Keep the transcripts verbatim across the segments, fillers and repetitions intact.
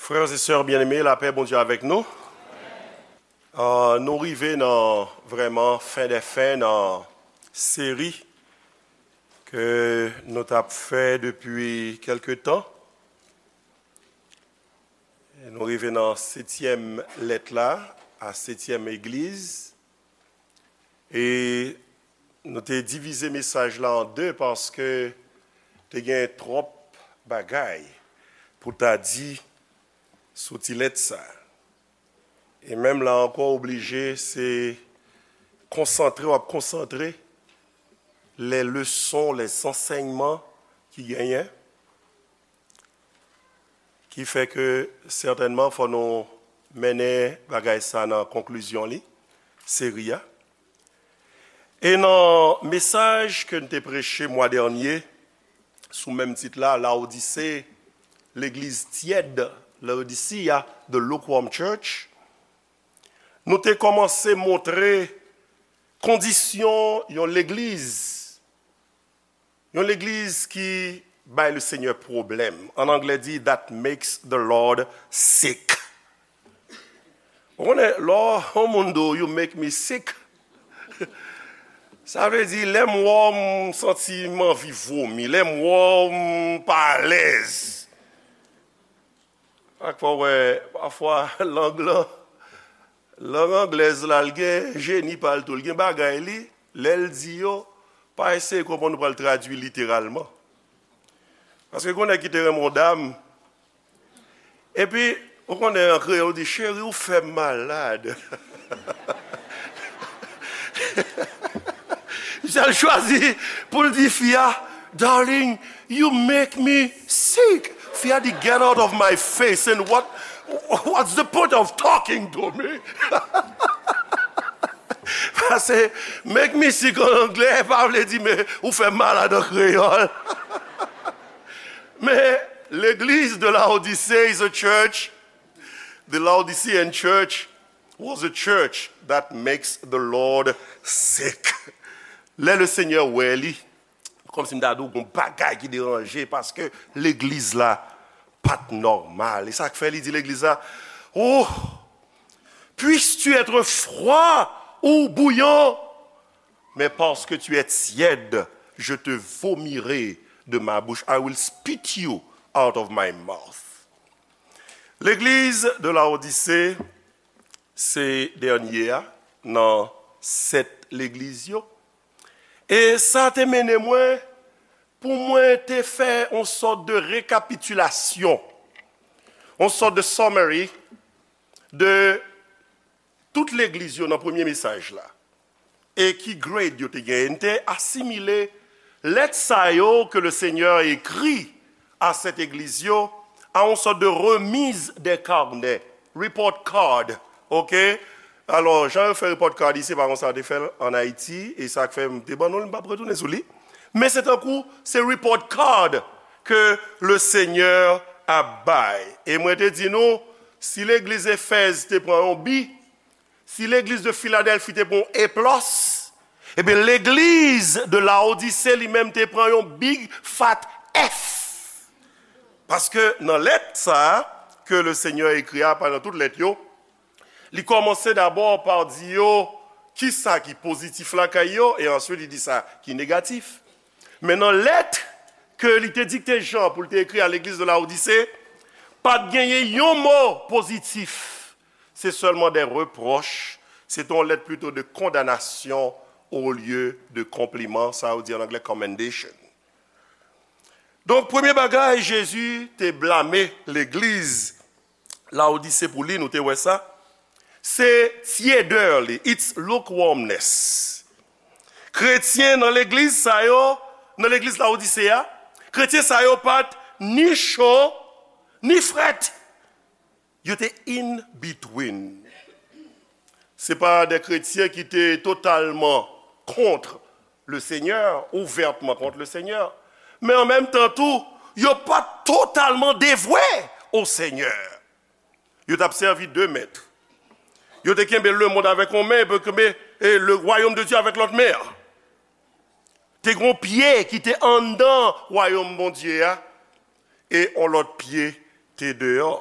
Frères et sœurs bien-aimés, lapè Bondye avèk nou. Ah, nou rive nan vrèman fen dè fen nan seri ke nou t ap fè depi kèlke tan. Nou rive nan setyèm lèt la, a setyèm egliz. E nou te divize mesaj la an de paske te gen twòp bagay pou ta di sou ti lèt sa. E menm la ankò, oblije, se konsantre, w ap konsantre les leçons, les enseignements ki genyen, ki fè ke sètènman fò nou mennen bagay sa nan konklizyon li, seri a. E nan mesaj ke n te preche mwa dènye, sou menm tit la, Lawodise, legliz tyèd, Laodicea, the lukewarm church, nou te kòmanse montre kondisyon yon legliz, yon legliz ki bay le Senyè pwoblèm. An anglè di, that makes the Lord sick. Ou konnen, lè yon moun di w, "You make me sick," sa vle di, lè m wè w, m santi m anvi vomi, lè m wè w, m pa alèz. Ak fò wè, pafwa, lang lan, lang anglèz la, l gen jeni pa l tou, l gen bagay li, lè l di yo, pa eseye konprann ou pral tradui literalman. Paske gen nèg ki te renmen yon dam, epi, ou konnen an kreyòl, ou di, "Cheri, ou fè m malad." Misye al chwazi pou l di fi a, "Darling, you make me sick." Fi a di, "Get out of my face, and what, what's the point of talking to me?" Paske "make me sick" an anglè pa vle di, "Men ou fè m malad" an kreyòl. Men legliz de Laodicée is a church. The Laodicean church was a church that makes the Lord sick. Lè le Senyè wè li, kòmsi m ta di w gon bagay ki deranje, paske legliz la pa t nòmal. E sa k fè li di legliz la, "Oh, puisses-tu être froid ou bouillant, mais parce que tu es tiède, je te vomirai de ma bouche. I will spit you out of my mouth." Legliz de Laodise se dènye a nan sèt legliz yo. E sa te mennen mwen pou mwen te fè yon sòt de rekapitilasyon, yon sòt de summary de tout legliz yo nan premye mesaj la. E ki grade yo te genyen. M te asimile lèt sa yo ke le Senyè ekri a sèt egliz yo a yon sòt de remise des carnets, report card, oke? Alò, jan yo fè report card isi, se pa konsa yo te fè l ann Ayiti, e sa k fè m te ban nou l, m p ap retounen sou li. Men se tankou, se report card ke le Senyè ap bay. E mwen te di nou, si legliz Efèz te pran yon bi, si legliz de Filadèlfi te pran yon A plis, ebyen legliz de Laodise li menm te pran yon big fat F. Paske nan lèt sa a ke le Senyè ekri a, pa nan tout lèt yo, li kòmanse dabò pa di yo kisa ki pozitif lakay yo, e answit li di sa ki negatif. Men nan lèt ke li te dikte Jan pou l te ekri a legliz de Laodise, pa t genyen yon mo pozitif. Se sèlman de repwòch, se te yon lèt plito de kondanasyon olye de konpliman, sa yo di an anglè commendation. Donk, premye bagay, Jezi te blame legliz Laodise pou li, nou te wè sa, se tyedè li, its lukewarmness. Kretyen nan legliz sa yo, nan legliz Laodise a, kretyen sa yo pa t ni cho, ni frèt. Yo te in between. Se pa de kretyen ki te totalman kont le Senyè, ouvètman kont le Senyè. Men an menm tan tou, yo pa t totalman devwe o Senyè. Yo t ap sèvi de mèt. Yo te kenbe lemonn avèk yon men, epi yo kenbe, e, le royaume de Dieu avèk lòt men an. Te gen yon pye ki te anndan wayòm Bondye a, e yon lòt pye te deyò.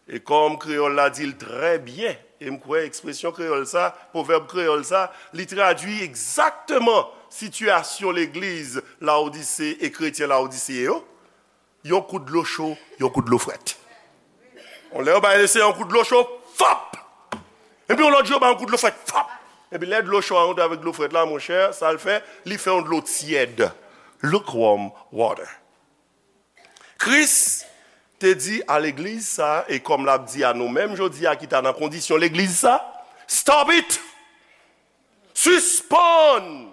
E kòm kreyòl la di l trè byen, e m kwè ekspresyon kreyòl sa, pwovèb kreyòl sa, li tradui egzakteman sitiyasyon legliz Lawodise e kretyen Lawodise yo, yon kout dlo cho, yon kout dlo frèt. Yon lè yo bay Leseyè yon kout dlo cho, fòp! Epi yon lòt jou yo bay yon kout dlo frèt, fòp! Epi lè dlo cho a rantre avèk dlo frèt la, monchè, sa l fè, li fè yon dlo tyèd. Lukewarm water. Kris te di a legliz sa, e kòm l ap di a nou menm jodi a ki ta nan kondisyon legliz sa, stop it! Sispann!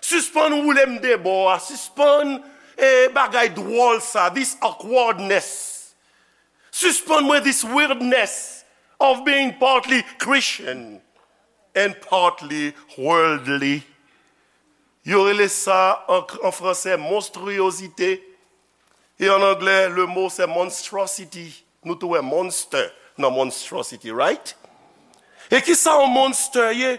Sispann woule m de bò a, sispann e bagay dwòl sa, this awkwardness. Sispann mwen this weirdness of being partly Christian and partly worldly. Yo rele sa an, an fransè monstriyozite. E an anglè, le mo se monstrosity. Nou tou wè monster nan monstrosity, right? E ki sa yon monster ye?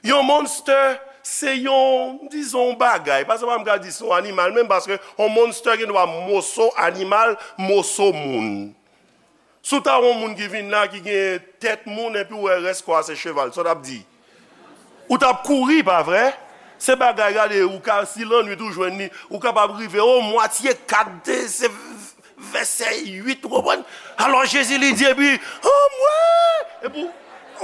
Yon monster, se yon, dizon, yon bagay. Paske pa m ka di se yon animal, menm paske yon monster gen dwa moso animal, moso moun. Si w ta wè yon moun ki vin la, ki gen tèt moun, epi w wè rès kò a se cheval, sa w t ap di? Ou t ap kouri, pa vre? Se bagay, gade, ou ka, si lannwit ou jwenn li, ou kapab rive o mwatye kat, se vèsè uit, ou konprann? Alò Jezi li di, epi, o mwen! Epi ou,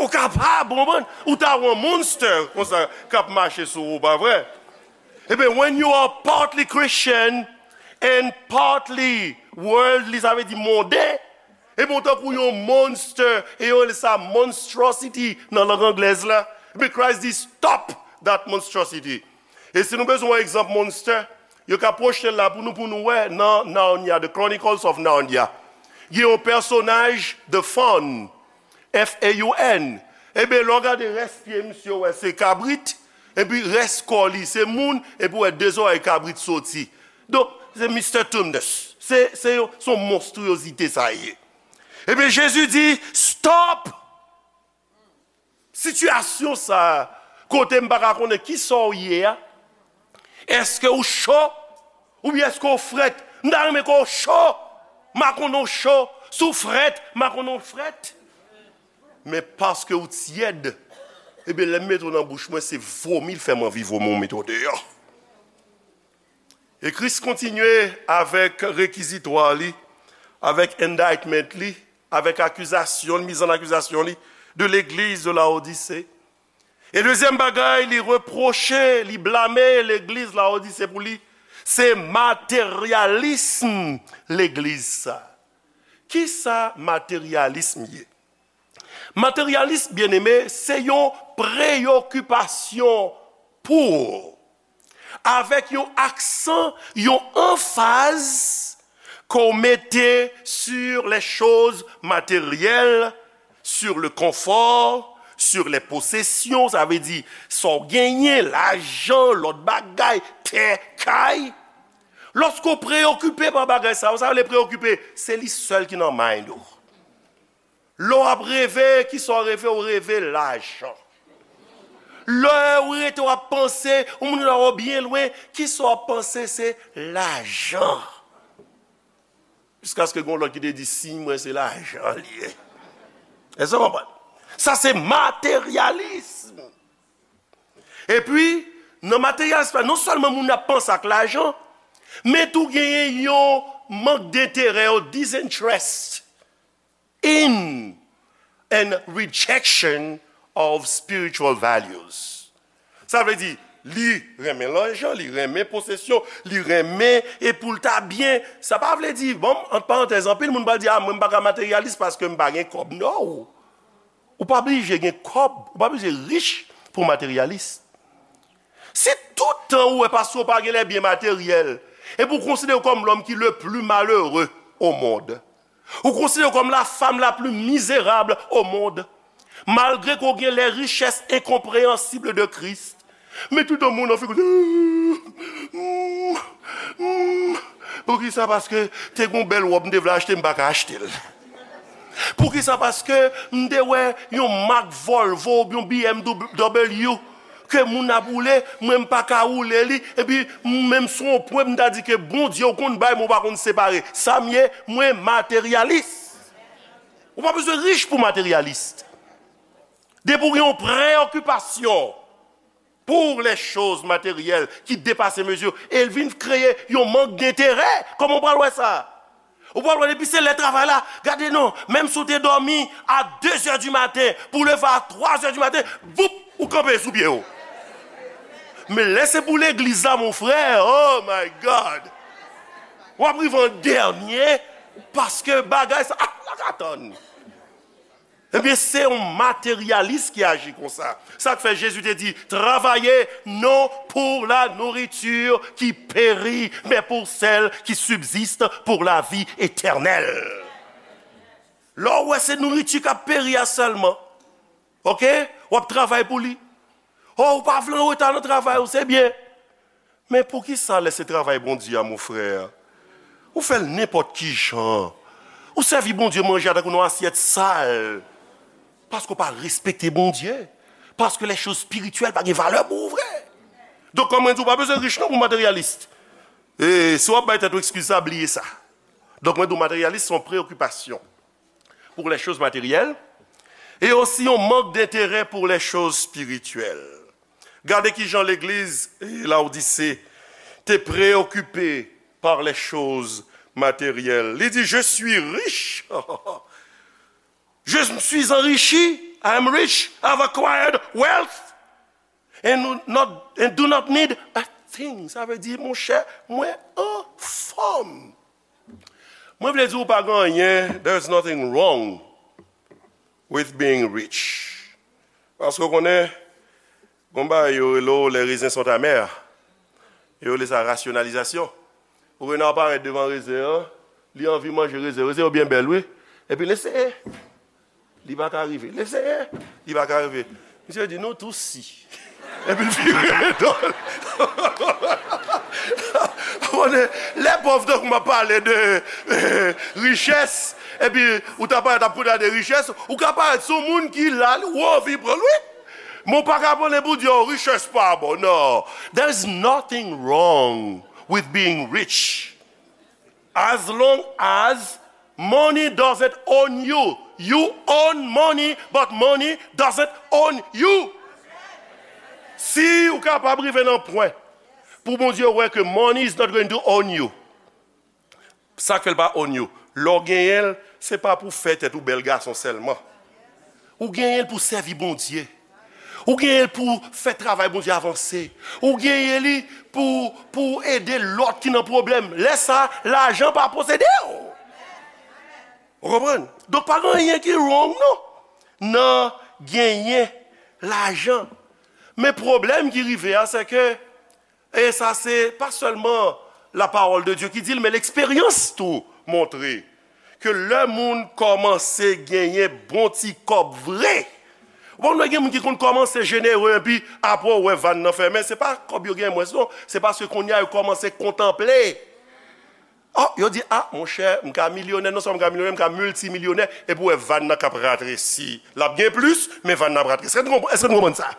ou kapab, ou konprann? Ou ta wè yon monster konsa k ap mache sou ou, pa vre? Ebyen, when you are partly Christian and partly worldly, sa vle di monden, ebyen, ou tankou yon monster, e yo rele sa monstrosity nan lang anglèz la. Ebyen, Christ di, stop that monstrosity. E si nou bezwen yon egzanp monster, yo ka pwojte l la pou nou, pou nou wè nan Narnia, The Chronicles of Narnia. Gen yon pèsonaj, The Faun, F A U N. Ebyen, lè w gade rès pye misye, w wè se kabrit, epi rès kò li se moun, epi w wè de zòrèy kabrit soti. Donk, se Mister Tumnus. Se, se yon, se yon monstriyozite sa ye. Ebyen, Jezi di, stop! Sitiyasyon sa a, kote m pa ka konnen ki sa w ye a, èske w cho? Oubyen èske w frèt? M ta renmen ke w cho. M pa konnen w cho. Si w frèt, m pa konnen w frèt. Men paske w tyèd, ebyen, lè m mete w nan bouch mwen, se vomi l fè m anvi vomi w mete w deyò. E Kris kontinye avèk rekizitwa li, avèk indictment li, avèk akizasyon, miz an akizasyon li, de legliz de Laodise. E dezyèm bagay, li repwoche, li blame legliz Laodise pou li, se materyalism legliz sa. Ki sa materyalism ye? Materyalism, byeneme, se yon preyokipasyon pou, avèk yon aksan, yon anfaz ke w mete sur les choses matérielles, sur le confort, sur les possessions, sa vle di sa w genyen, lajan, lòt bagay, tè, kay. Lòske w preyokipe pa bagay sa yo, sa vle preyokipe, se li sèl ki nan mind ou. Lè w ap reve, ki sa w reve? W reve lajan. Lè w rete w ap panse, yon moun la w byen lwen, ki sa w ap panse? Se lajan. Jiskaske gen yon lòt ki te di, siy mwen se lajan li ye. Èske w konprann? Sa se materyalism. Epi, nan materyalism la, non sèlman moun ap panse ak lajan, men tou genyen yon mank denterè, yon disinterest in and rejection of spiritual values. Sa vle di, li renmen lajan, li renmen posesyon, li renmen e pou l ta byen. Sa pa vle di, bon, ant parantèz, anpil moun pral di, a, mwen m pa ka materyalis paske m pa gen kòb. No! Ou pa blije gen kòb, ou pa blije rich pou w materyalis. Si tout tan ou wè paske w pa gen les biens matériels, epi w konsidere w kòm l'homme qui le plus malheureux au monde, ou konsidere w kòm la femme la plus misérable au monde, malgre ke w gen les richesses incompréhensibles de Christ, men tout tan moun nan figi w, poukisa? Paske te gen yon bèl wòb m te vle achte, m pa ka achte l. Poukisa? Paske m te wè yon mak Volvo oubyen yon B M W ke moun ap woule, mwen m pa ka woule li, epi mwen menm sou yon pwen m ta di ke Bondye ou konn bay, men ou pa konn separe. Sa m ye, mwen materyalis. Ou pa bezwen rich pou materyalis. Depi w gen yon preokipasyon pour les choses matérielles ki depase mezi, e l vin kreye yon mank denterè. Kòman w pral wè sa? Ou pral wè depi se lè travay la, gade non, menm si w te dòmi a de zè di maten, pou w leve a twa zè di maten, voup, ou kanpe sou pye w. Men lè se pou legliz la, mon frè, oh my God! W ap rive an dènye, paske bagay sa, ah, la ka tann. Ebyen, se yon materyalis ki aji konsa. Sa k fè Jezi te di, travaillez non pour la nourriture qui périt, mais pour celle qui subsiste pour la vie éternelle. Lè w wè se nouriti k ap peri a sèlman, oke, w ap travay pou li. Oh, ou pa vle anreta nan travay ou, se byen. Men poukisa lè se travay Bondye a, mon frè, ou fè l nenpòt ki jan? Ou sèvi Bondye manje a tankou nan asyèt sal. Paske w pa respekte Bondye. Paske les choses spirituelles pa gen valè pou ou vre. Donk, kòm mwen di, ou pa bezwen rich non pou materyalis. E si w ap bay tèt ou eskiz sa, bliye sa. Donk, mwen di w, materyalis se yon preokipasyon pour les choses matérielles et aussi yon mank denterè pour les choses spirituelles. Gade ki jan legliz Lawodise te preokipe par les choses matérielles. Li di, je suis riche. Je me suis enrichi. I am rich. I have acquired wealth. And not, and do not need a thing. Sa vle di, monchè, mwen anfòm. Mwen vle di ou pa gen anyen, there is nothing wrong with being rich. Paske w konnen, gon bagay yo rele w les raisins sont amers. Yo rele sa rasyonalizasyon. Ou wè nan parèt devan rezen an, li anvi manje rezen. Rezen yo byen bèl, wi. Epi l eseye. Li pa ka rive. L eseye. Li pa ka rive. Misye di, nou tou si. Epi l vire do l. Konnen, lè pòv tankou m ap pale de, eh, richès, epi ou ta parèt ap koute de richès, ou ka parèt sou moun ki la, ou anvi pran l, wi. Men w pa ka pran l pou di, oh, richès pa bon. Non. There is nothing wrong with being rich. As long as money doesn't own you. You own money, but money doesn't own you. Si ou kapab rive nan pwen pou Bondye wè ke money is not going to own you, sa k fè l pa own you? Lè w genyen l, se pa pou fè tèt ou bèl gason sèlman. Ou genyen l pou sèvi Bondye. Ou genyen l pou fè travay Bondye avanse. Ou genyen li pou, pou ede lòt ki nan pwoblèm. Lè sa, lajan pa posede w. Ou konprann? Donk, pa gen anyen ki wrong, non, nan genyen lajan. Men pwoblèm ki rive a, se ke E sa se pa sèlman la parole de Dieu ki di l, men leksperyans tou montre ke lè moun kòmanse genyen bon ti kòb vre, ou konn wè gen moun ki konn kòmanse jenere, epi apre w wè vàn nan fèmen, se pa kòb yo gen mwens non, se paske kounye a yo kòmanse kontanple. Oh, yo di, ah, monchè, m ka milyonè, non sèlman m ka milyonè, m ka miltimilyonè, epi w wè vàn nan k ap ratresi. L ap gen plis, men vàn nan ap ratresi. Èske nou konprann, èske nou konprann sa?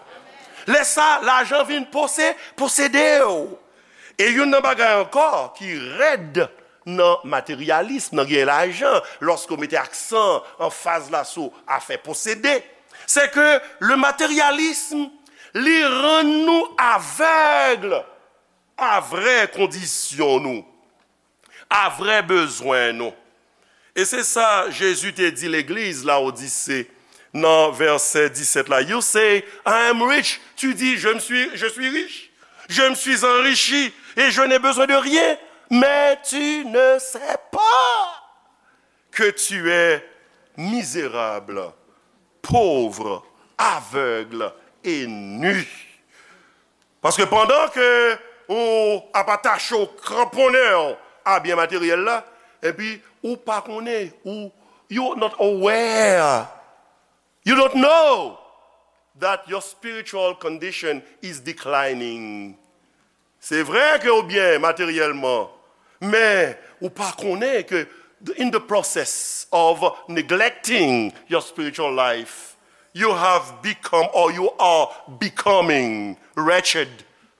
Lè sa, lajan vin pose-, posede w. E youn nan bagay ankò ki rèd nan materyalism, nan gen lajan, lòske w mete aksan, anfaz la sou afè posede, se ke le matérialisme, li rann nou avèg a vrè kondisyon nou, a vrè bezwen nou. E se sa Jezi te di legliz Lawodise nan vèsè disèt la. You say, I am rich. Tu dis, je me suis, je suis riche. Je me suis enrichi et je n'ai besoin de rien. Mais tu ne sais pas que tu es misérable, pauvre, aveugle et nu. Paske pandan ke ou ap atache w, kranponnen w a byen materyèl la, epi ou pa konnen, ou, you not aware, you don't know that your spiritual condition is declining. Se vre ke ou byen materyèlman, men ou pa konnen ke in the process of neglecting your spiritual life, you have become or you are becoming wretched,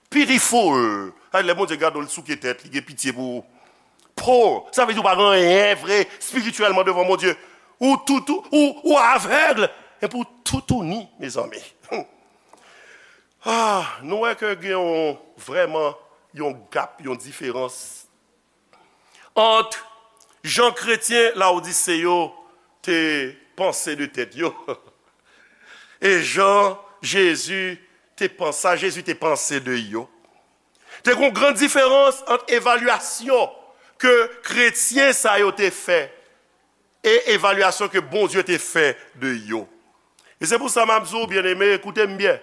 pitiful. Ay, lè Bondye gade w, li souke tèt, li gen pitye pou ou. Poor, sa vle di ou pa gen anyen vre espirityèlman devan Bondye. Ou toutou, ou, ou avèg, epi w toutouni, mezanmi. Ah, nou wè ke gen yon, vrèman, yon gap, yon diferans ant jan kretyen Lawodise yo te panse de tèt yo e jan Jezi te panse, sa Jezi te panse de yo. Te gen yon gran diferans ant evalyasyon ke kretyen sa yo te fè e evalyasyon ke Bondye te fè de yo. E se pou sa m ap di w, byeneme, koute m byen.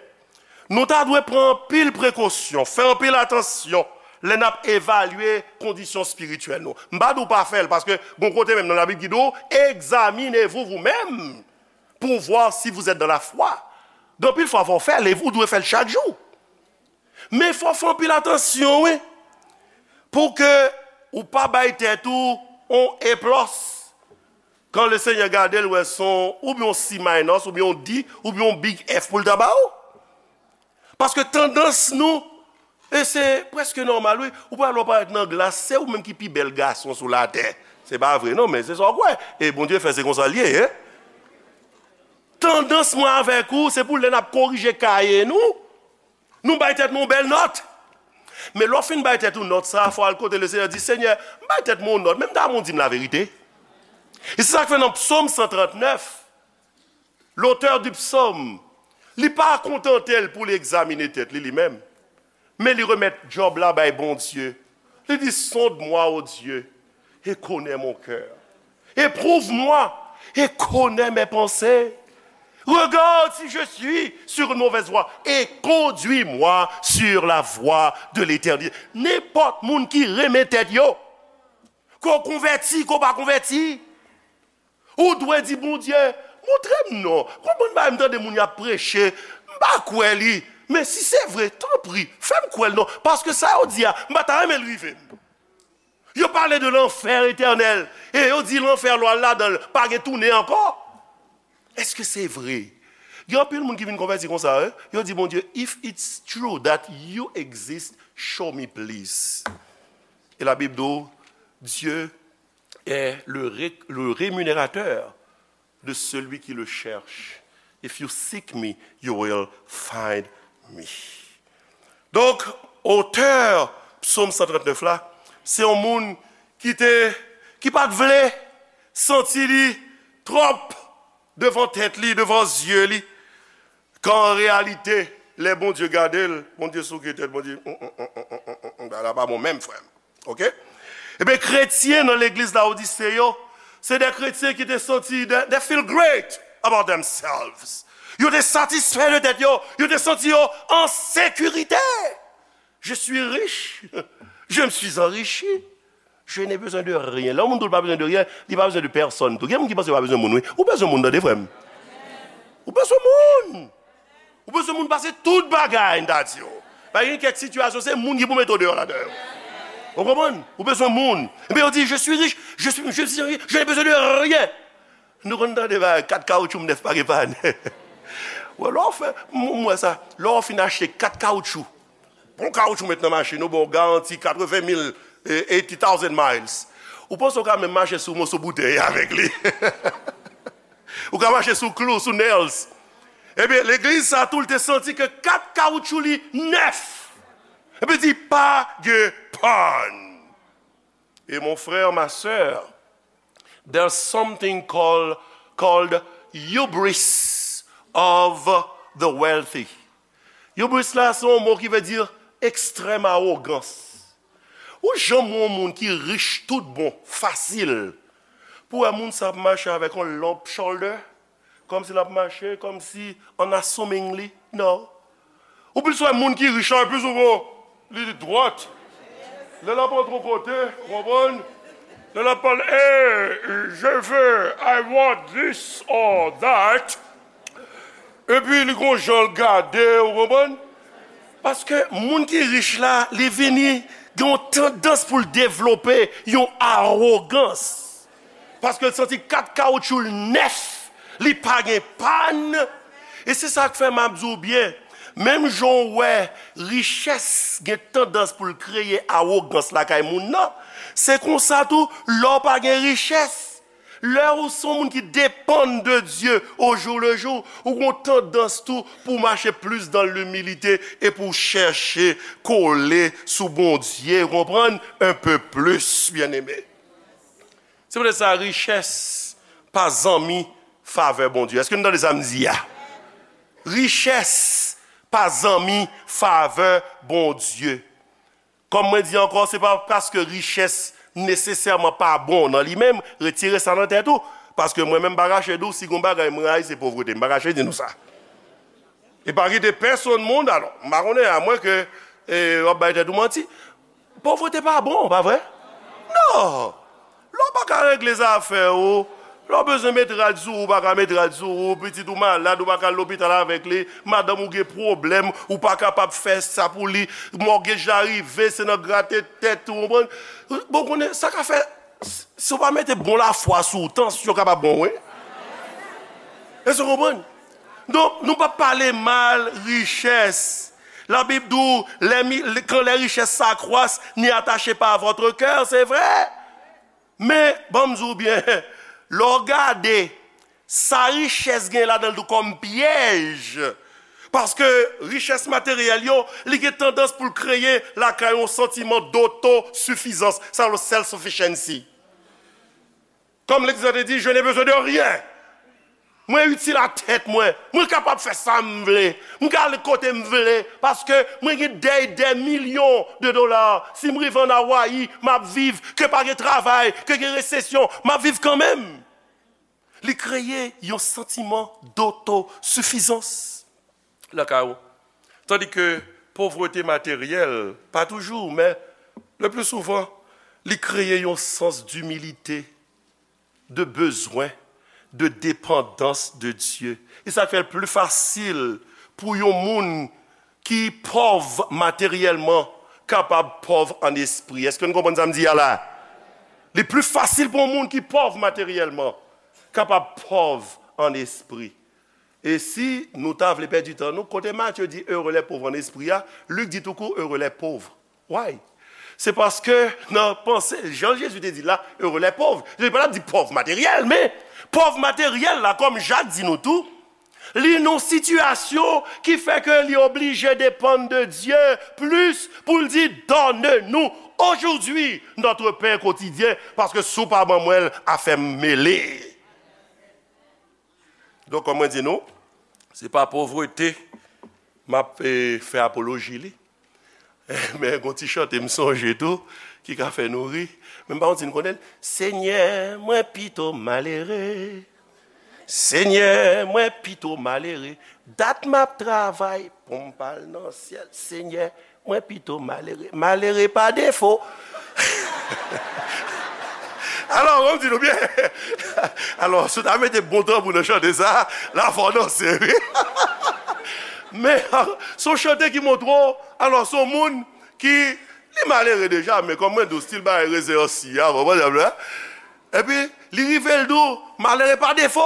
Nou ta dwe pran anpil prekosyon, fè anpil atansyon lè n ap evalye kondisyon espirityèl nou. M pa di w pa fè l, paske gon kote menm nan Labib ki di w, examinez-vous vous-même pour voir si vous êtes dans la foi. Gen anpil fwa fò w fè l, e ou dwe fè l chak jou. Men fò w fè anpil atansyon, wi, pou ke ou pa bay tèt ou on A plis. Kan Lesenyè gade l, wè se on, oubyen on C minus, oubyen on D, oubyen on big F pou l ta ba ou. Paske tandans nou, e se prèske nòmal, wi, ou pral wè w parèt nan glas, se ou menm ki pi bèl gason sou latè. Se pa vre, non, men se sa w kwè. E Bondye fè, se konsa l ye, en. Tandans mwen avèk ou, se pou lè n ap korije kaye nou, nou bay tèt nou yon bèl nòt. Men lè w fin bay tèt ou nòt sa, fò w al kote Lesenyè, di, Senyè, m bay tèt mwen yon nòt, men m ta renmen w di m laverite. E se sa k fè nan Psaume cent trente-neuf, l'auteur du psaume, li pa kontante l pou li egzamine tèt li, li menm. Men li remèt djòb la bay Bondye. Li di, sonde-moi, ô Dieu, et connais mon cœur. Éprouve-moi et connais mes pensées. Regarde si je suis sur une mauvaise voie et conduis-moi sur la voie de l'éternité. Nenpòt moun ki renmen tèt yo, ke w konvèti, ke w pa konvèti, ou dwe di Bondye, montre m non. Konbyen bagay m tande moun y ap preche, m pa kwè li. Men si se vre, tanpri, fè m kwè l non. Paske sa yo di a, m pa ta renmen l rive m. Yo pale de lanfè etènèl. E yo di lanfè lè w al ladan l, pa gen tounen ankò. Èske se vre? Gen anpil moun ki vin konvèti konsa, wi. Yo di Bondye, if it's true that you exist, show me please. E Labib di w, Dieu est le, ré- le rémunérateur de celui qui le cherche. If you seek me, you will find me. Donk, otè Psaume cent trente-neuf la, se yon moun ki te, ki pa t vle santi li twòp devan tèt li, devan zye li, kan an reyalite, lè Bondye gade l, Bondye souke tèt, Bondye, "Mm, mm, mm, mm, mm, mm, mm, bagay la pa bon menm, frè m." Oke? Ebyen, kretyen nan legliz Lawodise yo, se de kretyen ki te santi, they, they feel great about themselves. Yo te satisfè de tèt yo, yo te santi yo an sekirite. Je suis riche, je me suis enrichi, je n'ai besoin de rien. Lè yon moun di w l pa bezwen de ryen, li pa bezwen de pèsonn tou. Gen moun ki panse yo pa bezwen moun, wi. Ou bezwen moun, tande, frè m. Ou bezwen moun. Ou bezwen moun pase tout bagay, m ta di w. Pa gen kèk sitiyasyon, se moun ki pou mete w deyò ladan yo. Ou konprann? Ou bezwen moun. Epi yo di, je suis riche, je suis, je suis riche, je n'ai besoin de rien. Nou konn tande bagay, kat kawoutchou m nèf pa gen pann. Wè, lè w fè, m, m wè sa, lè w fin achte kat kawoutchou, bon kawoutchou met nan machin, ou ba w garanti katreven mil, eh, eighty thousand miles. Ou panse w ka menm mache sou moso boutèy avèk li? Ou ka mache sou klou, sou nails. Ebyen, legliz sa tou, l te santi ke kat kawoutchou li nèf. Epi di, pa gen pann. Et mon frère, ma sœur, there's something called, called hubris of the wealthy. Hubris la, se yon mo ki vle di ekstrèm awogans. Ou janm wè yon moun ki rich tout bon, fasil, pou wè moun sa ap mache avèk yon lump shoulder, kòmsi l ap mache, kòmsi an assuming li? Non. Ou plis wè moun ki rich la, plis ou wè li dwat. Lè l ap antre yon kote, ou konprann? Lè l ap pale, hey, je veux, I want this or that. Epi li gon jan l gade, ou konprann? Paske moun ki rich la, li vini gen yon tandans pou l devlope yon awogans. Paske l santi kat kawoutchou l nèf, li pa gen pann. E se sa k fè m ap di w byen, menm jan w wè richès gen tandans pou l kreye awogans lakay moun nan, se konsa tou, lè w pa gen richès, Lè ou se yon moun ki depann de Dye au jour le jour, ou gen yon tandans tou pou w mache plis dans l'humilité e pou w chèche kole sou Bondye, ou konprann, un peu plus, byeneme. Se poutèt sa, richès pa zanmi favè Bondye. Èske nou tande sa m di a? Richès pa zanmi favè Bondye. Kòm mwen di ankò, se pa paske richès nesesèman pa bon nan li menm, retire sa nan tèt ou. Paske mwen menm, m pa kache di w, si gon bagay mwen rayi, se povrete. M pa kache di nou sa. E pa kite pèsonn moun, alò, m pa konnen, amwen ke e, w ap bay tèt ou manti. Povrete pa bon, pa vre? Non! Lè w pa ka regle zafè ou, lè w bezwen met rad sou ou, ou pa ka met rad sou ou, pitit ou malad, ou pa ka al lopital avèk li, madanm ou gen pwoblèm, ou pa kapab fè sa pou li, mògej la rive, se nan grate tèt ou, konprann? Bon, konnen, sa ka fè, si w pa mete bon lafwa sou ou, tansyon kapab bon, wi. Èske w konprann? Donk, nou p ap pale mal richès. Labib di w, les mi- quand les richesses s'accroissent, n'y attachez pas votre cœur, se vre. Men, ban m di w byen, lè w gade, sa richès gen ladan l tou kòm pyèj. Paske richès materyèl yo, li gen tandans pou l kreye lakay yon santiman dotosifizans, sa yo self-sufficiency. Kòm Legliz la te di, je n'ai besoin de rien. Mwen itil a tèt mwen. Mwen kapab fè sa m vle. Mwen ka ale kote m vle. Paske mwen gen des, des millions de dollars. Si m rive ann Awayi, m ap viv. Ke pa gen travay, ke gen resesyon, m ap viv kanmenm. Li kreye yon santiman dotosifizans lakay ou. Tandis que pauvreté matérielle, pas toujours, mais le plus souvent, li kreye yon sans d'humilité, de besoin, de dépendance de Dieu. E sa k fè l pli fasil pou yon moun ki pòv materyèlman kapab pòv an espri. Èske nou konprann sa m di a la? Li pli fasil pou yon moun ki pòv materyèlman kapab pòv an espri. E si nou ta vle pèdi tan nou, kote Matye di heureux les pauvres en esprit a, Lik di tou kou heureux les pauvres. Why? Se paske nan panse, jan Jezi te di la, heureux les pauvres. Jezi pa t ap di pòv materyèl, men pòv materyèl la, kòm Jak di nou tou, li nan yon sitiyasyon ki fè ke li oblije depann de Dye plis pou l di, donne-nous aujourd'hui notre pain quotidien, paske si w pa ban mwen l, afè m mele. Donk, kòm mwen di nou, se pa povrete m ap e, fè apoloji li. Men gon ti chante m sonje tou, ki ka fè nou ri. Men m pa konn si n konnen l. Senyè, mwen pito malere. Senyè, mwen pito malere. Dat m ap travay pou m pa al nan syèl. Senyè, mwen pito malere. Malere pa defo. Alò, ban m di nou byen. Alò, si w ta mete bon tanbou nan chante sa, la fò w danse, wi. Men, se yon chante ki montre w, alò, se yon moun ki, li malere deja, men kòm mwen di w, stil bagay rezèsi a, konprann sa m di w la? Epi, li rive, l di w, malere pa defo.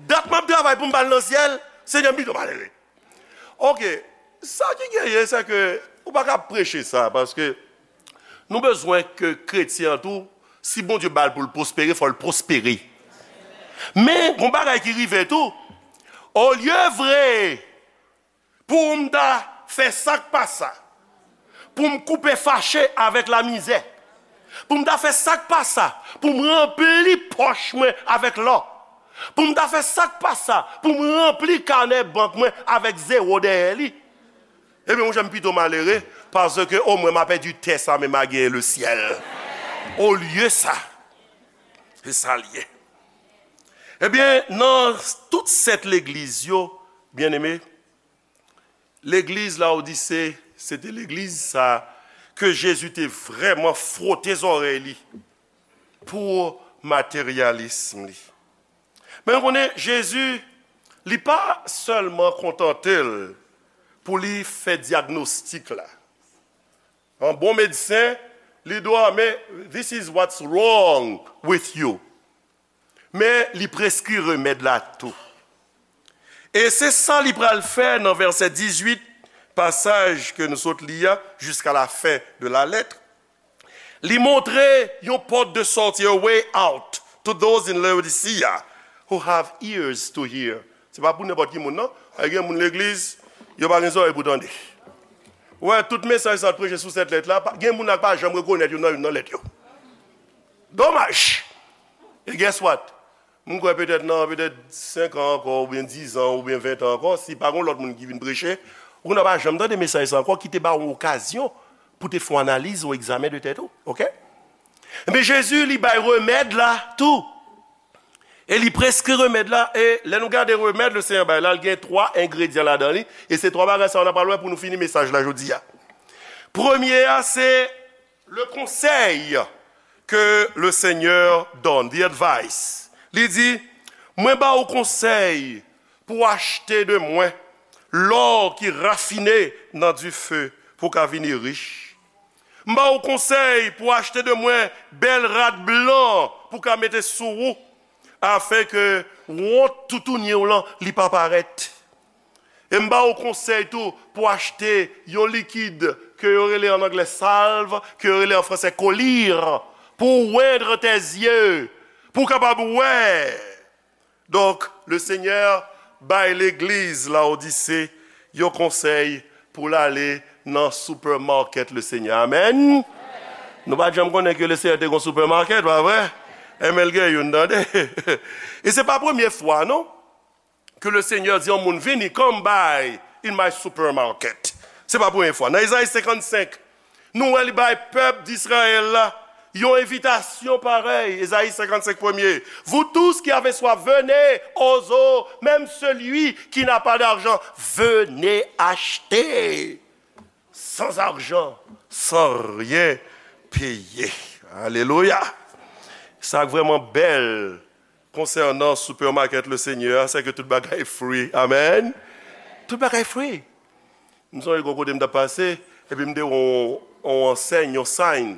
Dat m ap travay pou m pa al nan syèl, Senyè, m pito malere. Oke, sa ki genyen, se ke ou pa ka preche sa, paske nou bezwen ke kretyen an tou, si Bondye ba l pou l pwospere, fò l pwospere. Men, gon bagay ki rive tou, olye vre pou m ta fè sa k pa sa, pou m koupe fache avèk lamizè, pou m ta fè sa k pa sa, pou m ranpli pòch mwen avèk lò, pou m ta fè sa k pa sa, pou m ranpli kanè bank mwen avèk zewo dèyè li, ebyen, monchè, m pito malere, paske omwen m a pèdi tè sa, men m a genyen lesyèl. Olye sa, se sa l ye. Ebyen, nan tout sèt legliz yo, byeneme, legliz Lawodise, se te legliz sa ke Jezi te vrèman fwote zòrèy li pou materyalism li. Men nou konnen, Jezi, li pa sèlman kontante l pou li fè dyagnostik la. An bon medsen, li di w, men, this is what's wrong with you. Men li preskri remèd la tou. E se sa li pral fè nan vèsè dizuit, pasaj ke nou sot li a, jusqu'à la fin de la lettre. Li montre yon pòt de sòti, a way out. To those in Laodicea who have ears to hear. Se pa pou nenpòt ki moun, non. Ay, gen moun legliz, yo pa gen zòrèy pou tande. Ou wè, tout mesaj sa preche sou sèt lèt la, pa- gen moun la k pa janm rekonèt youn nan youn nan lèt yo. Domaj! E guess what? M kwè petèt nan petèt senk an ankò, oubyen diz an, oubyen ven an ankò, si pa gen lòt moun ki vin preche, ou nan pa janm tande mesaj sa ankò ki te ba w yon okazyon pou te fè yon analiz, yon egzamen de tèt ou. Oke? Men Jezi, li bay remèd la tou. E li preskri remèd la. E lè nou gade remèd le Senyè bay la, li gen twa engredyan ladan li. E se twa bagay sa yo n ap pral wè pou nou fini mesaj la jodi a. Premye a, se le conseil que le Seigneur donne, the advice. Li di, mwen ba ou konsèy pou achte de mwen lò ki rafine nan dife pou ka vini rich. M ba ou konsèy pou achte de mwen bèl rad blan pou ka mete sou ou, afenke wont toutouni w lan li pa parèt. E m ba ou konsèy tou pou achte yon likid ke yo rele an anglè salve, ke yo rele an fransè collyre, pou wendre tes yeux, pou w kapab wè. Donk, le Senyè bay legliz Laodise yon konsèy pou l ale nan supermarket le Senyè. Amèn. Nou pa t janm konnen ke le Senyè te gon supermarket, pa vre? Enben l gen youn, tande. E se pa premye fwa, non, ke le Senyè di yon moun, vini, come by in my supermarket. Se pa premye fwa. Nan Ezayi senkannsenk, nou wè li bay pèp Dizrayèl la yon envitasyon parèy. Ezayi senkannsenk, premye. Vous tous qui avez soif, venez aux eaux, même celui qui n'a pas d'argent, venez acheter sans argent, sans rien payer. Alelouya! Sa k vrèman bèl konsènan supermarket le Senyè a, se ke tout bagay free. Amèn. Tout bagay free. M sonje gon kote m t ap pase, epi m te wè yon, yon ansèy, yon sign,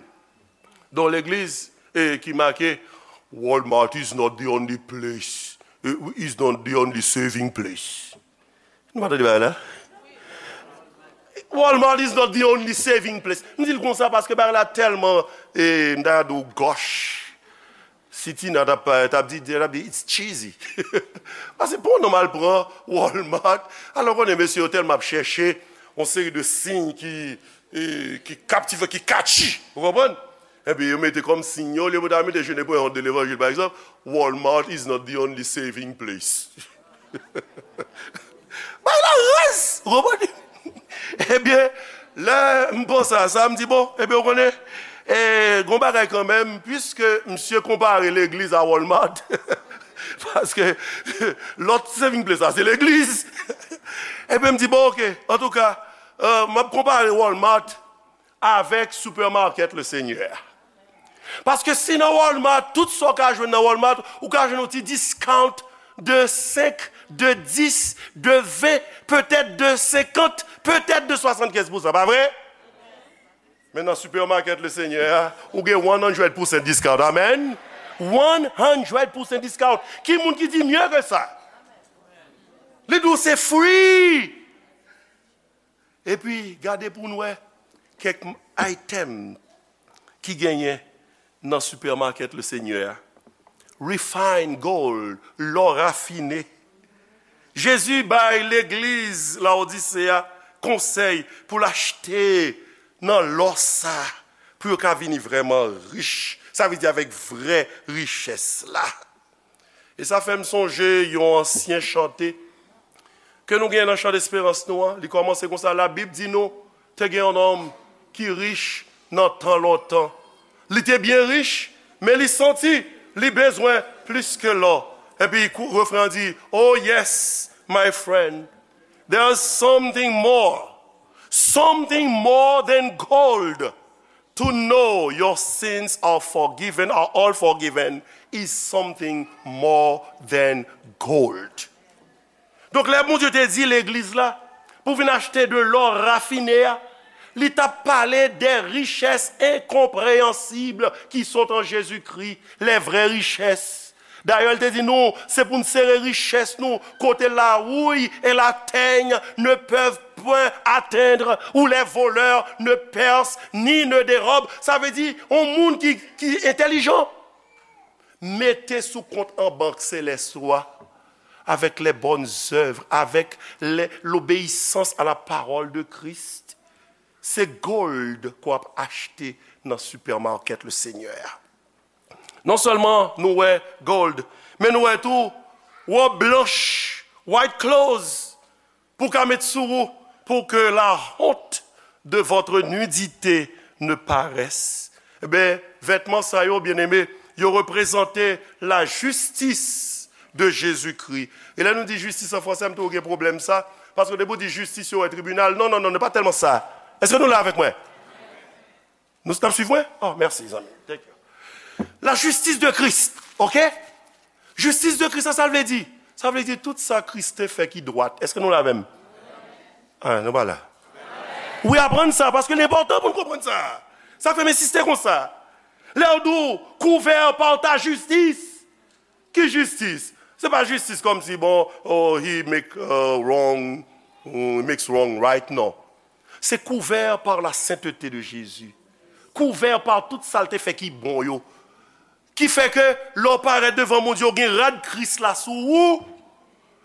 yon legliz, e ki make, Walmart is not the only place, eh, is not the only saving place. Nou pa tande bagay la? Walmart is not the only saving place. M di l konsa paske bagay la tèlman, e, m ta di w gòch. Si Tina t ap, t ap di, t ap di, it's cheesy. Paske pou yon nonm al pran Walmart, alò konnen mesye yo tèlman ap chèche yon seri de siy ki, e, ki kaptivan, ki catchy. Ou konprann? Epi yo mete kòm siy yo, olye pou ta mete je ne peux honte de l'évangile, pa egzanp, Walmart is not the only saving place. Bay la rès! Ou konprann? Ebyen, lè m panse a sa, m di, bon, ebyen, ou konnen, e, gon bagay kanmenm, piske misye konpare legliz a Walmart, paske lòt saving place la, se legliz. Ebyen, m di, bon, oke, antouka, e, m ap konpare Walmart avèk supermarket le Senyè a. Paske si nan Walmart, tout sa w ka jwenn nan Walmart, ou ka jwenn yon ti discount de senk, de dis, de ven, petèt de senkant, petèt de swasannkenz pousan, pa vre? Men nan supermarket le Senyè a, ou gen one hundred percent discount. Amèn. One hundred percent discount. Ki moun ki di mye ke sa? Li di w se free. Epi, gade pou n wè kèk item ki genyen nan supermarket le Senyè a. Refine gold, lò rafine. Jezi bay legliz Laodise a konsèy pou l achte nan lò sa, pou yo ka vini vrèman rich. Sa vle di avèk vrè richès la. E sa fè m sonje yon ansyen chante ke nou gen nan chan desperans nou an. Li kòmanse konsa, Labib di nou, te gen yon nonm ki rich nan tan lontan. Li te byen rich, men li santi li bezwen plis ke lò. Epi kou- refren an di, Oh yes, my friend, there's something more, something more than gold. To know your sins are forgiven, are all forgiven, is something more than gold. Donk, lè Bondye te di legliz la pou vin achte de lò rafine a, li t ap pale des richesses incompréhensibles qui sont en Jésus-Christ, les vraies richesses. Dayè, l te di nou, se pou n sere richès nou kote la houille et la teigne ne peuvent point atteindre, où les voleurs ne percent ni ne dérobent. Sa vle di, yon moun ki, ki entèlijan. Mete sou kont an bank selès ou a, avec les bonnes œuvres, avec les- l'obéissance à la parole de Christ. Se gold ke w ap achte nan supermarket le Seigneur. Non sèlman nou wè gold, men nou wè tou wòb blanch, white clothes, pou ka met sou ou, pour que la honte de votre nudité ne paraisse. Eben, vètman sa yo, byeneme, yo reprezante la justice de Jésus-Christ. E lè nou di jistis an fransè, m toujou gen pwoblèm sa, paske depi w di jistis, yo wè tribinal. Non, non, non, non, pa tèlman sa. Èske nou la avèk mwen? Nou ap swiv mwen? Oh, mèsi, zanmi. Thank you. La justice de Christ, ok? Jistis de Kris la, sa l vle di? Sa vle di tout sa Kris te fè ki dwat. Èske nou la avè m? Ah, nou pa la. Wi, aprann sa, paske li enpòtan pou n konprann sa. Sa fè m ensiste konsa. Lè w di w, couvert par ta justice. Ki jistis? Se pa jistis kòmsi, bon, oh, he make uh, wrong, he makes wrong right, non. Se couvert par la sainteté de Jésus. Couvert par tout sa l te fè ki bon yo. Ki fè ke lè w parèt devan Bondye, w gen rad Kris la sou ou.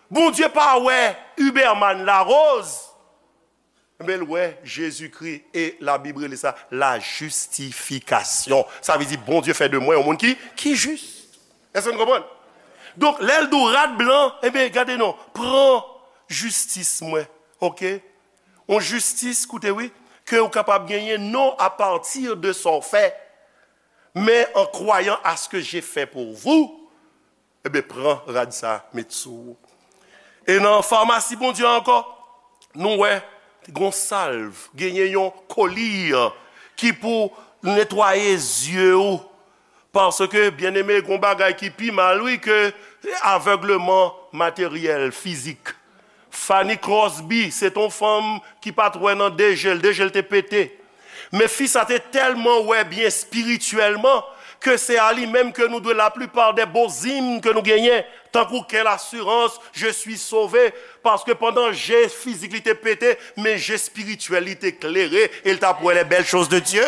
Bondye pa wè Huberman Larose, men l wè Jezikri, e Labib rele sa la justification. Sa vle di Bondye fè de mwen yon moun ki, ki jis. Èske nou konprann? Donk, lè l di w rad blan, ebyen, gade non, pran jistis mwen, oke? Yon jistis, koute wi, ke w kapab genyen non à partir de sa w fè, mais en croyant à ce que j'ai fait pour vous, ebyen, pran rad sa, met sou ou. E nan famasi Bondye ankò, nou wè, gon salv, genyen yon kolir ki pou netwaye zye ou. Paske, byeneme, gon bagay ki pi mal, wi, ke avègleman materyèl, fizik. Fanny Crosby, se t on fanm ki pa t wè nan de je l, de je l te pete. Men fi sa te tèlman wè byen espirityèlman ke se a li menm ke nou dwe laplipa de bon zim ke nou genyen, tankou quelle assurance, je suis sauvé, paske pandan je fizik li te pete, men je espirityèl li te klere, e l t ap wè les belles choses de Dieu.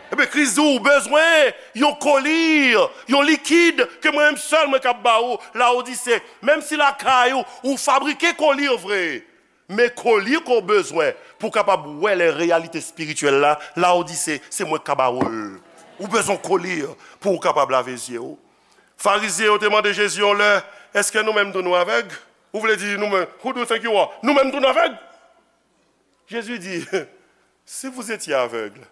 Ebyen, Kris di w bezwen yon kolir, yon likid ke mwen menm sèl mwen k ap ba ou, Laodise. Menm si lakay ou, ou fabrike kolir vre, men kolir ke w bezwen pou w kapab wè lè reyalite espirityèl la, Laodise, se mwen k ka ba ou l. Ou bezwen kolir pou w kapab lave zye w. Farizyen yo te mande Jezi yon lè, èske nou menm tou nou avèg? Ou vle di nou menm, who do you think you are? Nou menm tou nou avèg? Jezi di, si vous étiez aveugle,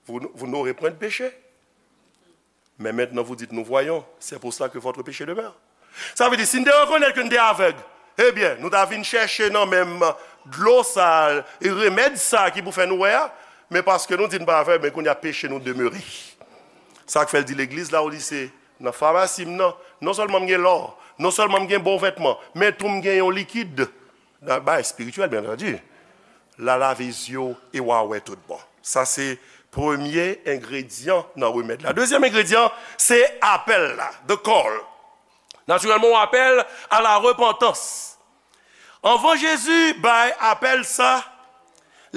vous, vous n'aurez point de péché. Mais maintenant, vous dites, nous voyons, c'est pour cela que votre péché demeure. Sa vle di, si n te rekonèt ke n te avèg, ebyen, nou ta vin chèche nan menm dlo sa, e remèd sa ki pou fè nou wè a, men paske nou di n pa avèg, men kounye a peche nou demere. Sa k fè l di legliz Laodise, nan famasi m nan, non sèlman m gen lò, non sèlman m gen bon vètman, men tou m gen yon likid. Nan bay espirityèl, byen antandi. L a lave zye w e w a wè tout bon. Sa se premye engredyan nan remèd la. Dezyèm engredyan, se apèl la, the call. Natirèlman, yon apèl à la repentance. Anvan Jezi bay apèl sa,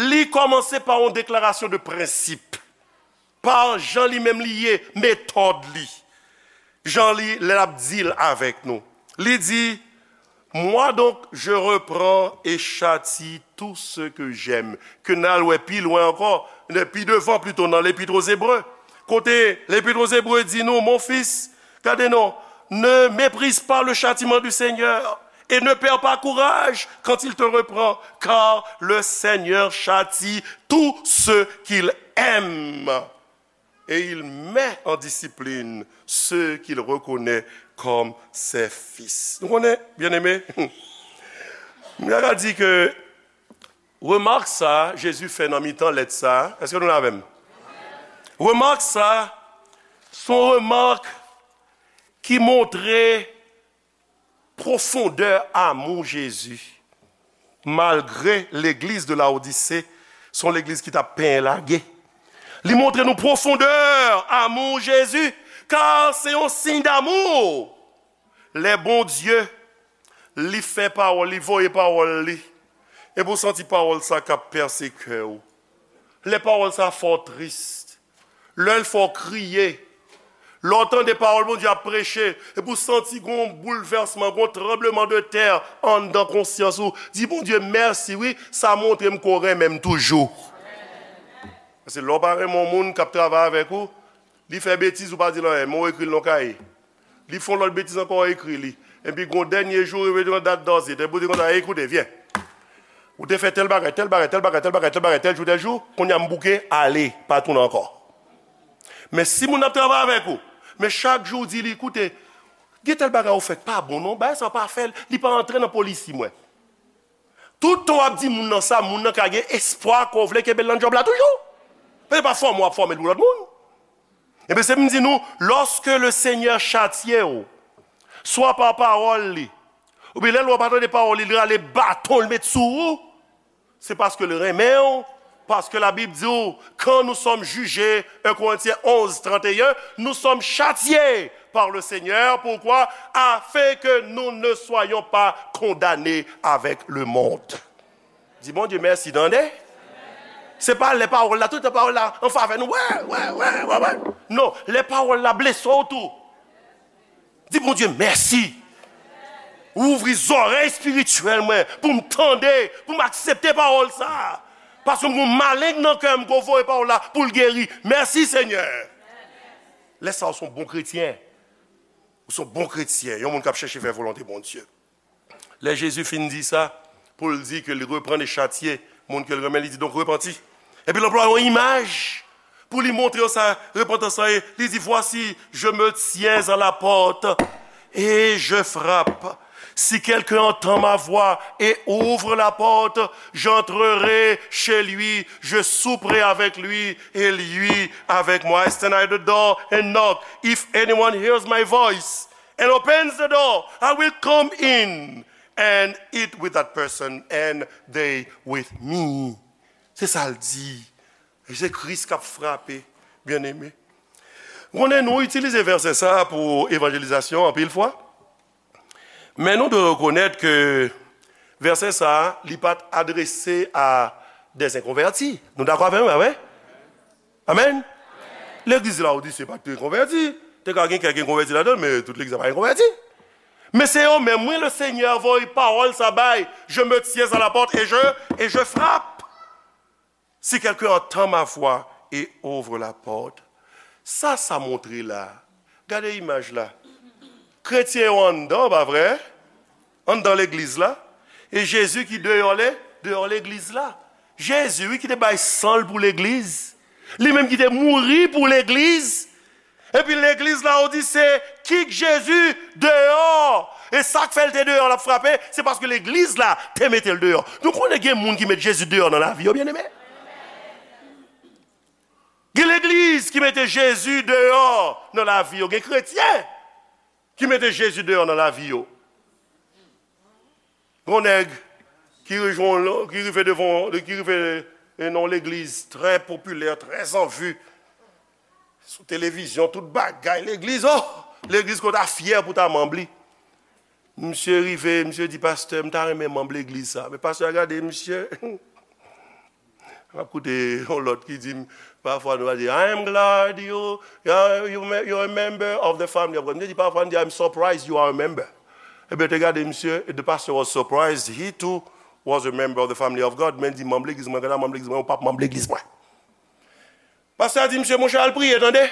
li kòmanse pa yon deklarasyon de prensip. Pa jan li menm li ye, metòd li. Jan li, lè l ap deal avèk nou. Li di, moi donc, je reprends et châtie tout ce que j'aime. Ke n al wè pi lwen ankò, pi devan plito nan Lepit aux Hébreux. Kote Lepit aux Hébreux di nou, mon fils, gade non, ne méprise pas le châtiment du Seigneur et ne perds pas courage quand il te reprend, car le Seigneur châtie tout ce qu'il aime. Et il met en discipline ceux qu'il reconnaît comme ses fils. Nou konnen, byeneme, m ta ka di ke remak sa Jezi fè nan mitan lèt sa, èske nou la avè m? Remak sa, se yon remak ki montre pwofondè amou Jezi. Malgre legliz de Laodise se yon legliz ki t ap penyen lage, li montre nou pwofondè amou Jezi, ka se yon siy damou. Lè Bondye, li fè pawòl, li voye pawòl li, epi w santi pawòl sa k ap pèse kè w. Lè pawòl sa fè w tris, lè l fè w kriye, Lè w tande pawòl Bondye ap preche, epi w santi gon boulvèsman, gon tranbleman de tè anndan konsyans ou, di Bondye mèsi wi, sa montre m ke w renmen m toujou. Paske lè w pa renmen yon moun k ap travay avèk ou, li fè betiz, ou pa di l anyen, men w ekri l nan yon kaye. Li fè yon lòt betiz ankò, w ekri li. Epi gon dènye jou, rive yon dat dòzit, epi w di konsa, ekoute, vyen. Ou te fè tèl bagay, tèl bagay, tèl bagay, tèl bagay, tèl bagay, tèl jou, tèl jou, kounye a m bouke, ale, pa tounen ankò. Men si moun ap travay avèk ou, men chak jou w di li, koute, gen tèl bagay ou fè k pa bon non, bagay sa w pa fè l, li pa antre nan polisi mwen. Tout tan w ap di moun nan sa, moun nan ka gen espwa ke w vle kenbe l nan djòb la toujou. Paske pa fòme w ap fòme l pou lòt moun. Ebyen, se pou m di nou, lorsque le Seigneur châtie w, swa pa pawòl li, oubyen lè l wè w pa tande pawòl li, li rale baton, l met sou ou, se paske l renmen w, paske Labib di w, quand nous sommes jugés, un Corinthiens onze, trente et un, nous sommes châtiés par le Seigneur. Pourquoi? Afin que nous ne soyons pas condamnés avec le monde. Di Bondye mèsi, tande. Se pa lè pawòl la, tout tan pawòl la an favè nou. Wè, wè, wè, wè, wè. Non, lè pawòl la blese w tou. Di Bondye mèsi. Ou ouvri zòrèy espirityèl mwen pou m tande, pou m aksepte pawòl sa a. Paske m gon maleng nan kè m ke w voye pawòl la pou l geri. Mèsi, Senyè. Lè sa a, ou se yon bon kretyen. Ou se yon bon kretyen, yon moun k ap chèche fè volonte Bondye. Lè Jezi fin di sa, pou l di ke li reprann e chatye moun ke l renmen, li di, donk, repanti. Epi l anplwaye yon imaj pou li montre yo sa repantans lan ye. Li di, voici, je me tiens à la porte et je frappe. Si quelqu'un entend ma voix et ouvre la porte, j'entrerai chez lui, je souperai avec lui et lui avec moi. I stand at the door and knock. If anyone hears my voice and opens the door, I will come in and eat with that person and they with me. Se sa l di. E se Kris k ap frape, byeneme. Konnen nou itilize vèsè sa a pou evanjelizasyon anpil fwa. Men nou dwe rekonèt ke vèsè sa a, li pa t adrese a des inconvertis. Nou dakò avè m, pa vre? Amèn? Legliz Lawodise pa t konvèti. Te ka gen kèk konvèti ladan l, men tout legliz la pa t konvèti. Men se yo menm, wi, le Seigneur voye pawòl sa bay. Je me tiens à la porte et je, et je frappe. Si quelqu'un entend ma voix et ouvre la porte. Sa, sa montre la. Gade imaj la. Kretyen yo anndan, pa vre? Anndan legliz la. E Jezi ki deyò le, deyò legliz la. Jezi, wi, ki te bay san l pou legliz. Li menm ki te mouri pou legliz. Epi legliz la, ou di se kik Jezi deyò. E sa k fè l te deyò, l ap frape, se paske legliz la te mete l deyò. Nou konnen gen moun ki met Jezi deyò nan lavi yo, byeneme. Gen legliz ki mete Jezi deyò nan lavi yo. Gen kretyen ki mete Jezi deyò nan lavi yo. Gon nèg ki rejwenn, ki rive devan, ki rive nan yon legliz trè popilè, trè anvi. Sou televizyon, tout bagay, legliz, oh! Legliz ke w ta fyè pou w ta manm li. Misye rive, misye di, pastè, m ta renmen manm legliz sa. Men pastè a gade misye. M ap koute yon lòt ki di m, pafwa nou va di, I am glad you, you, you, you're a member of the family of God. Misye di, pafwa nou di, I'm surprised you are a member. Ebyen, te gade misye, the pastor was surprised, he too was a member of the family of God. Men di, manm legliz mwen, gade manm legliz mwen, ou p ap manm legliz mwen. Pastè a di, misye, monchè, al priye, tande.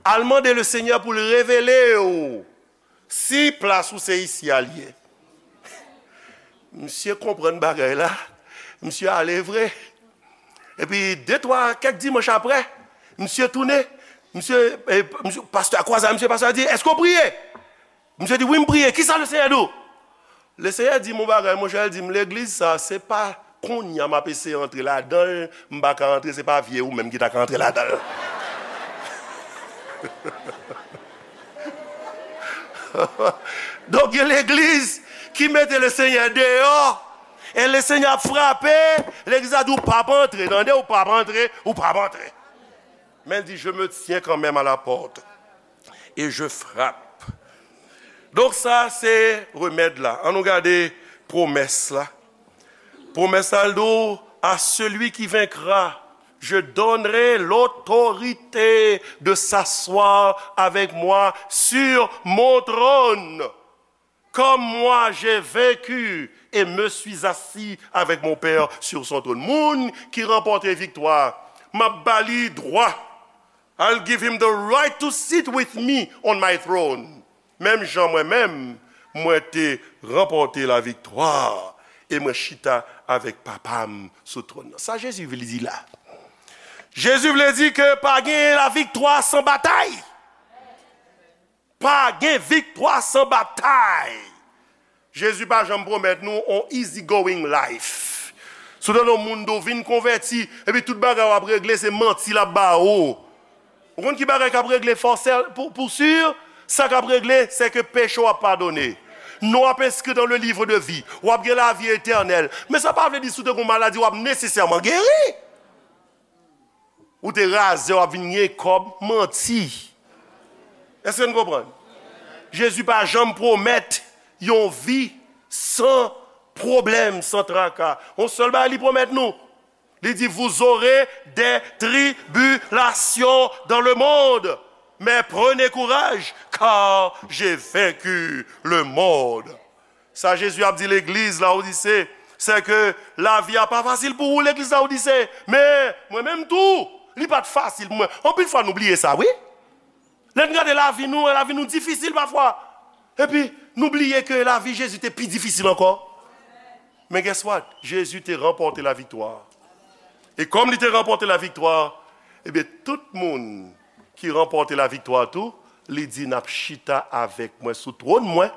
Al mande le Senyè pou l revele w si plas ou se isi a l ye. Misye konprann bagay la. Misye ale vre. Epi de, twa, kèk dimanch apre, misye tounen. Misye, e, misye, pastè a kwaze a misye, pastè a di, èske w priye? Misye di, wi, m priye. Kisa le Senyè di w? Le Senyè di m yon bagay, monchè, l di m, legliz sa, se pa kounye a m ap eseye antre ladan l, m pa ka antre, se pa vye ou menm ki ta ka antre ladan l. Donk, gen legliz ki mete le Senyè deyò, e le Senyè ap frape, legliz la di, ou p ap antre, tande, ou p ap antre, ou p ap antre. Men l di, je me tiens quand même à la porte et je frappe. Donk sa se remèd la. Ann nou gade pwomès la. Pwomès la, l di w, à celui qui vaincra, Je donnerai l'autorité de s'asseoir avec moi sur mon trône, comme moi j'ai vaincu et me suis assis avec mon Père sur son trône. Moun ki ranpòte viktwa, m ap ba li dwa. I'll give him the right to sit with me on my throne. Menm jan mwen menm, mwen te ranpòte laviktwa e mwen chita avèk Papa m sou twòn nan. Sa Jezi vle di la? Jezi vle di ke pa gen laviktwa san batay. Pa gen viktwa san batay. Jezi pa janm pwomèt nou on easy going life. Si w tande yon moun di w vin konvèti, epi tout bagay w ap regle se manti l ap ba ou. Ou konn ki bagay k ap regle fòsè pou, pou si? Sa k ap regle, se ke peche w ap padone. Non w ap enskri dans le livre de vie. W ap gen lavi etènèl. Men sa pa vle di si w te gen yon maladi, w ap nesesèman geri. Ou te razè, w ap vin gen kòb, manti. Èske n konprann? Jezi pa janm pwomèt yon vi san pwoblèm, san traka. Yon sèl bagay li pwomèt nou. Li di, vous aurez des tribulations dans le monde, mais prenez courage, car j'ai vaincu le monde. Sa Jezi ap di legliz Lawodise, se ke lavi a pa fasil pou ou, legliz Lawodise. Men, mwen menm tou, li pa t fasil pou mwen. Anpil fwa nou bliye sa, wi. Lè n gade lavi nou, lavi nou difisil pafwa. Epi, nou bliye ke lavi Jezi te pi difisil ankò. Men guess what? Jezi te ranpòte laviktwa. E kòm li te ranpòte laviktwa, ebyen, tout moun ki ranpòte laviktwa tou, li di, n ap chita avèk mwen sou twòn mwen,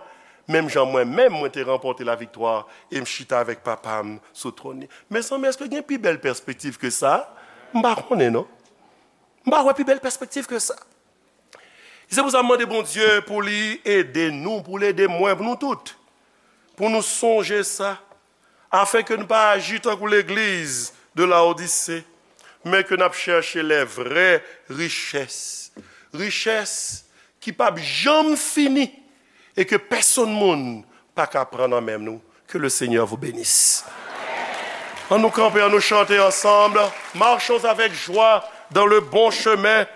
menm jan mwen menm mwen te ranpòte laviktwa e m chita avèk Papa m sou twòn li. Mezanmi, èske gen pi bèl pèspektiv ke sa? M pa konnen, non. M pa wè pi bèl pèspektiv ke sa. Se pou sa m mande Bondye pou li ede nou, pou l ede mwen, pou nou tout, pou nou sonje sa, afenke nou pa aji tankou legliz de Lawodise, men ke n ap chèche les vraies richesses. Richès ki p ap janm fini e ke pèsonn moun pa ka pran nan men nou. Que le Seigneur vous bénisse. An nou kanpe, an nou chante ansanm. Marchons avec joie dans le bon chemin,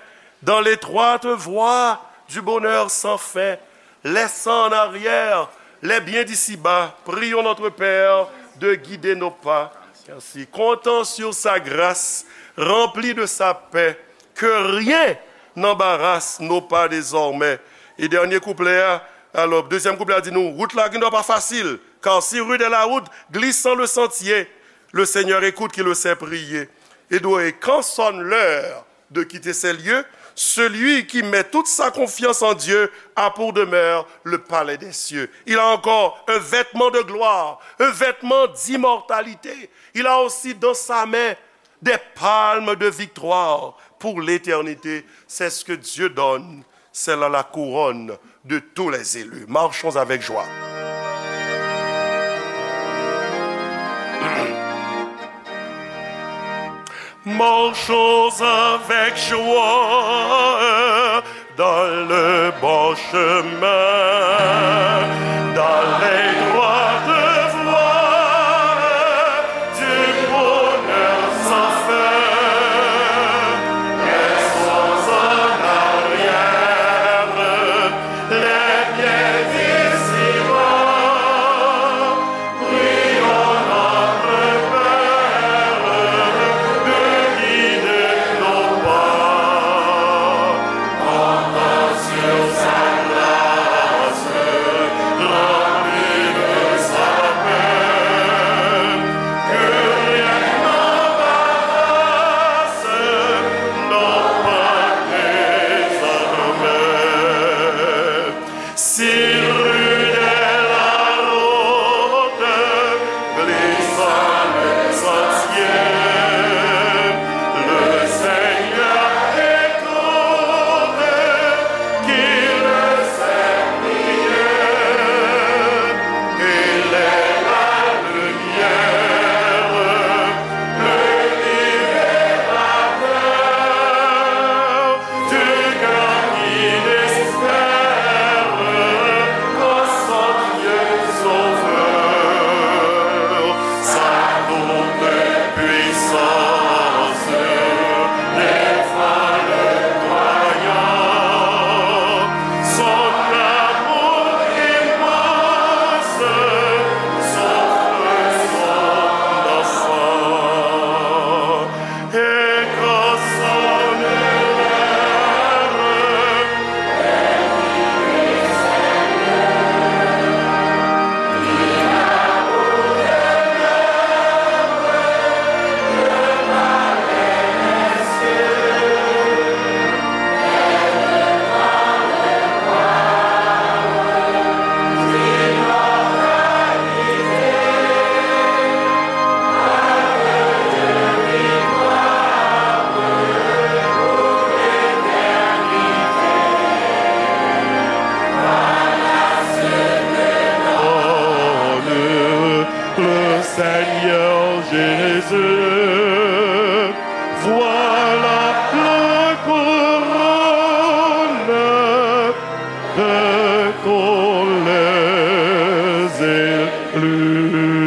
dans l'étroite voie du bonheur sans fin, laissant en arrière les biens d'ici-bas, prions notre Père de guider nos pas. Merci. Comptant sur sa grâce, rempli de sa paix, que rien n'embarrasse nos pas désormais. E dènye kouplè a, alò, dezyèm kouplè a di nou, wout la gendwa pa fasil, car si rude est la route, glissant le sentier, le Seigneur écoute qui le sait prier. Et doit, et quand sonne l'heure de quitter ces lieux, celui qui met toute sa confiance en Dieu a pour demeure le palais des cieux. Il a encore un vêtement de gloire, un vêtement d'immortalité. Il a aussi dans sa main des palmes de victoire pour l'éternité. C'est ce que Dieu donne, c'est là la couronne de tous les élus. Marchons avec joie. Marchons avec joie dans le bon chemin, dans l'étroite voie du bonheur sans fin. Laissons en arrière les biens d'ici-bas. Prions notre Père de guider nos pas. Comptons sur sa grâce, rempli de sa paix, que rien n'embarrasse nos pas désormais. Si rude est la route, glissant le sentier, le Seigneur écoute qui le sait prier. Il est la lumière, le libérateur du cœur qui désespère. Salut.